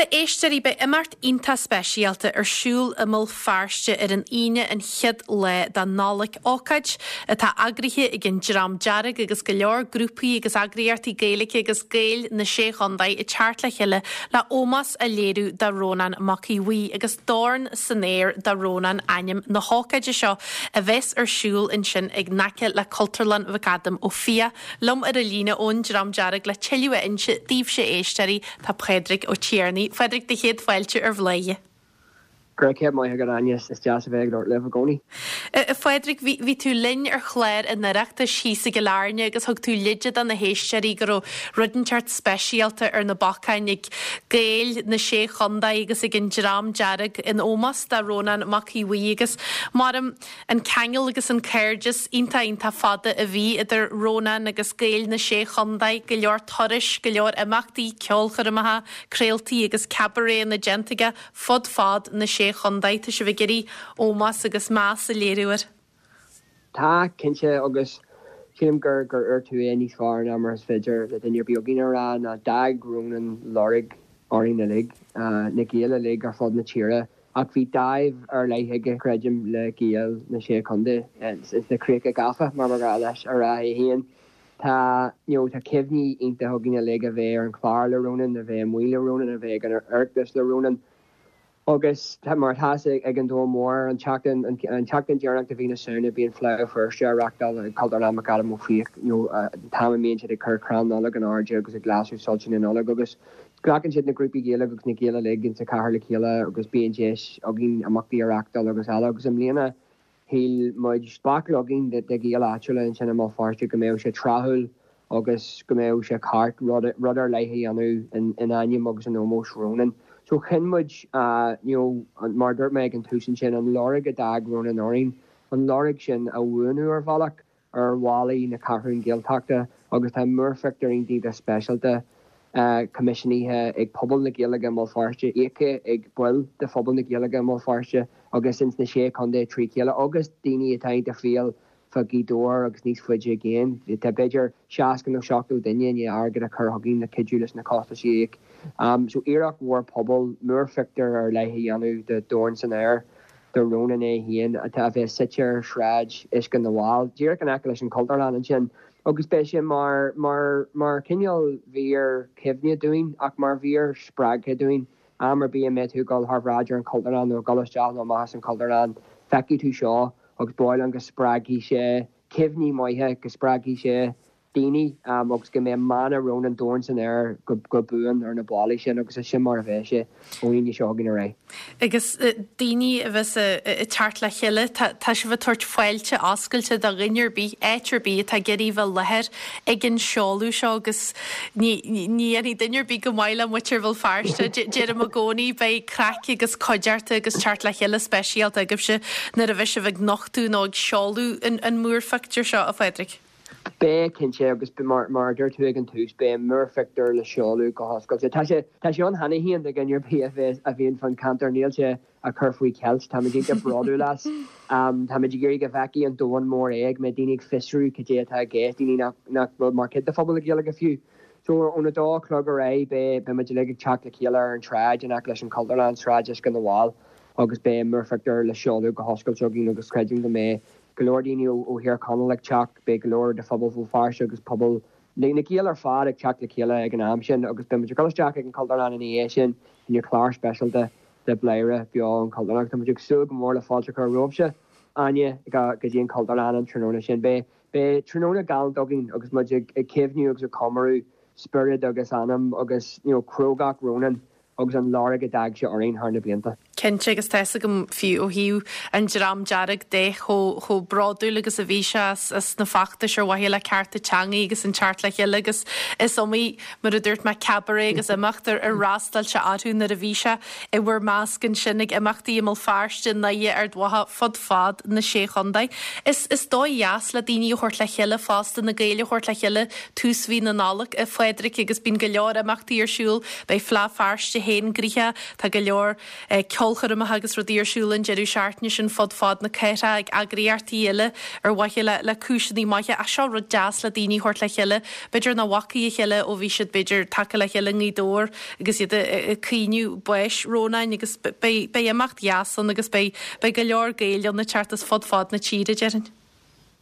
Bhuel, a éisteoirí, beidh imeacht iontach speisialta ar siúl i mBéal Feirste ar an Aoine an chéad lá de Nollaig, ócáid atá eagraithe ag an Dream Dearg agus go leor grúpaí agus eagraíochtaí Gaeilge agus Gaeil na Sé Chontae ag teacht le chéile le ómós a léiriú do Rónán Mac Aodh Bhuí agus Dorn san Aer do Rónán ainm na hócáide seo a bheas ar siúl ansin in aice le Cultúrlann McAdam Ó Fiaich. Liom ar an líne ón Dream Dearg le tuilleadh a inse daoibhse a éisteoirí tá Pádraig Ó Tiarnaigh. Phádraig, do chéad fáilte ar Bhladhaire. Go raibh céad maith agat Áine, is deas a bheith ag labhairt libh i gcónaí. A Phádraig, bhí, bhí tú linn ar chlár an Oireachtais thíos i gCill Airne agus thug tú leide do na héisteoirí go raibh rud inteacht speisialta ar na bacáin ag Gaeil na Sé Chontae agus ag an Dream Dearg in ómós do Rónán Mac Aodh Bhuí agus maram An ceangal agus an cairdeas iontach iontach fada a bhí idir Rónán agus Gaeil na Sé Chontae, go leor turais, go leor imeachtaí, ceolchoirmeacha, craoltaí agus cabaréanna déanta aige fud fad na Sé Chontae. Tá sibh ag iarraidh ómós agus meas a léiriú air. Tá, cinnte, agus sílim gur gur dhúirt tú é níos fearr ná mar is féidir le duine ar bith againn a rá, ná d'fhág Rónán lorg orainn uilig, na Gaeil uilig ar fud na tíre. Ach bhí dáimh ar leith aige, creidim, le Gaeil na Sé Chontae, ins na Críocha Gafa, mar ba ghnáth leis a rá é féin. Tá, you know, tá cuimhní iontacha againn uilig a bheith ar an chlár le Rónán, a bheith amuigh le Rónán, a bheith ag an Oireachtas le Rónán. Agus tá, mar atá fhios ag an domhan mór, an tseachtain, an tseachtain deireanach de mhí na Samhna bíonn Fleadh Feirste á reachtáil ag Cultúrlann McAdam Ó Fiaich, you know, an t-am a mbíonn siad ag cur crann Nollag in airde agus ag lasadh soilse na Nollag agus Glacann siad na grúpaí Gaeilge agus na Gaeil uilig insa chathair le chéile agus bíonn deis againn imeachtaí a reachtáil agus eile agus i mbliana shíl muid, baicle againn de Ghaeil áitiúla ansin i mBéal Feirste go mbeadh sé tráthúil agus go mbeadh sé ceart rud rud ar leith a dhéanamh in in ainm agus in ómós Rónan. So chinn muid you know mar a dúirt mé ag an tús ansin an lorg a d'fhág Rónan orainn, an lorg sin a bhuanú ar bhealach. ar bhallaí na Ceathrún Gaeltachta agus tá múrphictiúr iontach speisialta coimisiúnaithe ag pobal na Gaeilge i mBéal Feirste, íoctha ag baill de phobal na Gaeilge i mBéal Feirste agus ins na Sé Chontae trí chéile agus daoine atá iontach fial fá Ghaoth Dobhair agus níos faide i gcéin. Tá b'fhéidir 60 nó 70 duine i ndiaidh airgead a chur chugainn le cuidiú leis na costais a íoc. So iarracht mhór pobail, múrphictiúr ar leith a dhéanamh de Dhorn san Aer. do Rónán é féin, atá a bheas suite ar Shráid Uisce na bhFál, díreach in aice leis an Chultúrlann ansin, agus beidh sé mar, mar, mar chineál mhír chuimhne dúinn ach mar mhír spreagtha dúinn. Am ar bith a mbeidh tú ag dul thar bhráid ar an Chultúrlann nó ag dul isteach nó amach as an Chultúrlann, feicfidh tú seo agus ba mhaith liom go spreagfaidh sé cuimhní maithe, go spreagfaidh sé daoine agus go mbeidh mana Rónán Dorn san Aer go buan ar na ballaí sin agus is sin mar a bheidh sé ón Aoine seo chugainn ar aghaidh. Agus daoine a bheas ag teacht le chéile, tá sibh ag tabhairt fáilte oscailte do dhuine ar bith, áit ar bith atá ag iarraidh bheith i láthair ag an seoladh seo agus ní dhéanfaidh duine ar bith go maith le muintir Bhéal Feirste. Deirim i gcónaí, beidh craic agus cuideachta agus teacht le chéile speisialta agaibhse nuair a bheidh sibh ag nochtadh nó ag seoladh an múrphictiúr seo, a Phádraig. Beidh, cinnte, agus mar a dúirt tú ag an tús, beidh an múrphictiúr le seoladh go hoscailte. Tá sé, tá sé ann cheana féin do dhuine ar bith a bheas, a bhíonn fán cheantar, níl sé á chur faoi cheilt, táimid iontach bródúil as. Táimid ag iarraidh go bhfeicfidh an domhan mór é, go mbeidh daoine ag fiosrú cad é atá i gceist, daoine nach, nach bhfuil mar chuid de phobal na Gaeilge fiú. So, óna dó a chlog ar aghaidh, beidh, beidh muid uilig ag teacht le chéile ar an tsráid in aice leis an Chultúrlann, Sráid Uisce na bhFál, agus beidh an múrphictiúr le seoladh go hoscailte againn agus creidim go mbeidh go leor daoine ó Thír Chonaill ag teacht, beidh go leor de phobal Bhéal Feirste agus pobal na Gaeil ar fad ag teacht le chéile ag an am sin agus beidh muid ag dul isteach ag an Chultúrlann ina dhiaidh sin i ndiaidh clár speisialta de Bladhaire beo ón Chultúrlann agus tá muid ag súil go mór le fáilte a chur romhaibhse, Áine, go dtí an Chultúrlann an tráthnóna sin. Beidh beidh tráthnóna galánta againn agus muid ag cuimhniú agus ag comóradh spiorad agus anam agus you know crógacht Rónán agus an lorg a d'fhág sé orainn thar na blianta. Cinnte, agus tá fhios agam fiú ó thaobh an Dream Dearg de chomh chomh bródúil agus a bhí sé as as na feachtais ar mhaithe le cearta teangaí agus an teacht le chéile agus is iomaí, mar a dúirt mé, cabaret agus imeacht ar ar fhreastail sé orthu nuair a bhí sé i bhur measc ansin ag imeachtaí i mBéal Feirste, i nDoire, Ard Mhacha, fud fad na Sé Chontae. Is is dóigh dheas le daoine a thabhairt le chéile fosta, na Gaeil a thabhairt le chéile tús mhí na Nollag, a Phádraig, agus bíonn go leor imeachtaí ar siúl. Beidh Fleadh Feirste féin gnoitheach, tá go leor ceolchoirmeacha. ceolchoirmeacha agus rudaí ar siúl an deireadh seachtaine sin fud fad na cathrach ag eagraíochtaí eile ar mhaithe le le cúiseanna maithe ach seo rud deas le daoine a thabhairt le chéile, b'fhéidir nach bhfacaidh a chéile ó bhí siad b'fhéidir tagtha le chéile i nGaoth Dobhair agus iad ag caoineadh báis Rónáin agus beidh beidh imeacht dheas ann agus beidh beidh go leor Gaeil ann ag teacht as fud fad na tíre déarfainn.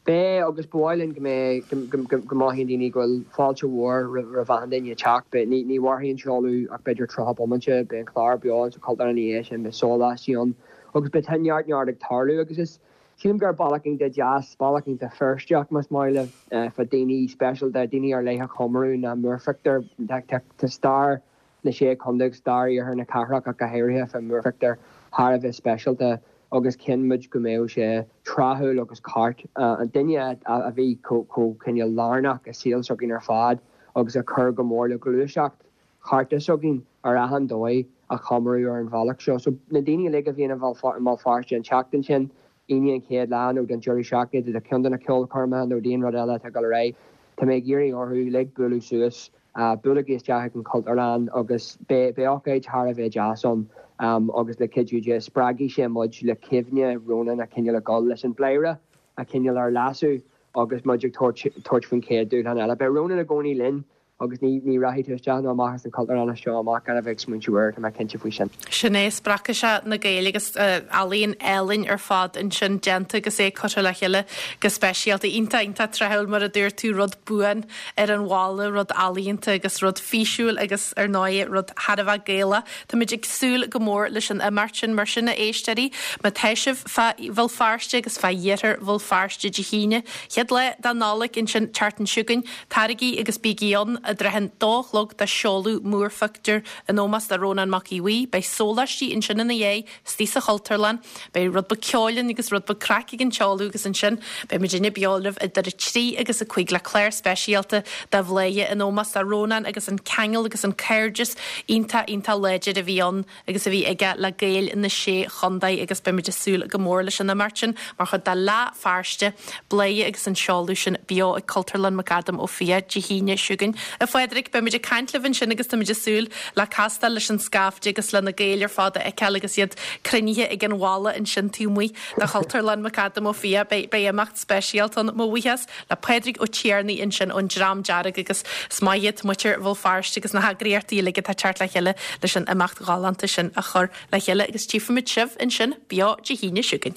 Beidh, agus ba mhaith linn go mbeidh, go mothaíonn daoine go bhfuil fáilte mhór roimh achan duine ag teacht. Beidh, ní mhairfidh an seoladh ach b'fhéidir 30 bomaite, beidh an clár beo sa Chultúrlann ina dhiaidh sin, beidh sóláistí ann agus beidh neart neart ag tarlú agus is, sílim gur bealach iontach deas, bealach iontach Feirsteach más maith libh, fá daoine speisialta, daoine ar leith a chomóradh ná múrphictiúr. Tá stair na Sé Chontae agus stair iarthar na cathrach ach go háirithe fá mhúrphictiúr thar a bheith speisialta agus chinn muid go mbeadh sé tráthúil agus ceart an duine a bhí chomh cineál lárnach i saol s'againn ar fad agus a chuir go mór le gluaiseacht chearta s'againn ar achan dóigh a chomóradh ar an bhealach seo. So na daoine uilig a bhíonn i mBéal Feirste an tseachtain sin, Aoine an chéad lá nó don deireadh seachtaine do cheann de na ceolchoirmeacha nó d'aon rud eile atá ag dul ar aghaidh, tá mé ag iarraidh orthu uilig bualadh suas, buailigí isteach ag an Chultúrlann agus beidh ócáid thar a bheith deas ann agus le cuidiú Dé spreagfaidh sé muid le cuimhne Rónáin a chineál a dhul leis an bpléire a chineál ar lasadh agus muid ag tabhairt faoin chéad dúshlán eile. Beidh Rónán i gcónaí linn Agus ní, ní rachaidh tú isteach nó amach as an Chultúrlann as seo amach gan a bheith ag smaointiú air, tá mé cinnte faoi sin. Sin é, spreagfaidh sé na Gaeil agus ealaíon álainn ar fad ansin déanta agus é curtha le chéile go speisialta. Iontach, iontach tráthúil mar a dúirt tú, rud buan ar an bhalla, rud ealaíonta agus rud físiúil agus ar ndóigh rud thar a bheith Gaelach. Táimid ag súil go mór leis an imeacht sin. Mar sin a éisteoirí, má tá sibh fá Bhéal Feirste agus fá iarthar Bhéal Feirste Dé hAoine, chéad lá de Nollaig ansin, an tseachtain seo chugainn, Taraigí agus bígí ann i dtrátha an dó a chlog do sheoladh múrphictiúr in ómós do Rónán Mac Aodha Bhuí. Beidh sóláistí ansin ina dhiaidh, istigh sa Chultúrlann. Beidh rud beag ceoil ann agus rud beag craic ag an tseoladh agus ansin beidh muidinne beo libh idir a 3 agus a 5 le clár speisialta de Bhladhaire in ómós do Rónán agus an ceangal agus an cairdeas iontach iontach láidir a bhí ann agus a bhí aige le Gaeil na Sé Chontae agus beimid ag súil go mór leis an imeacht sin mar chuid de Fhleadh Feirste, Bladhaire agus an seoladh sin beo ag Cultúrlann McAdam Ó Fiaich Dé hAoine seo chugainn. A Phádraig, beimid ag caint libh ansin agus táimid ag súil le castáil leis an scaifte agus le na Gaeil ar fad a fheiceáil agus iad cruinnithe ag an bhalla ansin taobh amuigh de Chultúrlann McAdam Ó Fiaich. Beidh imeacht speisialta ann. Mo bhuíochas le Pádraig Ó Tiarnaigh ansin ón Dream Dearg agus is maith iad muintir Bhéal Feirste agus na heagraíochtaí uilig atá ag teacht le chéile leis an imeacht ghalánta sin a chur le chéile agus tchífimid sibh ansin beo Dé hAoine seo chugainn.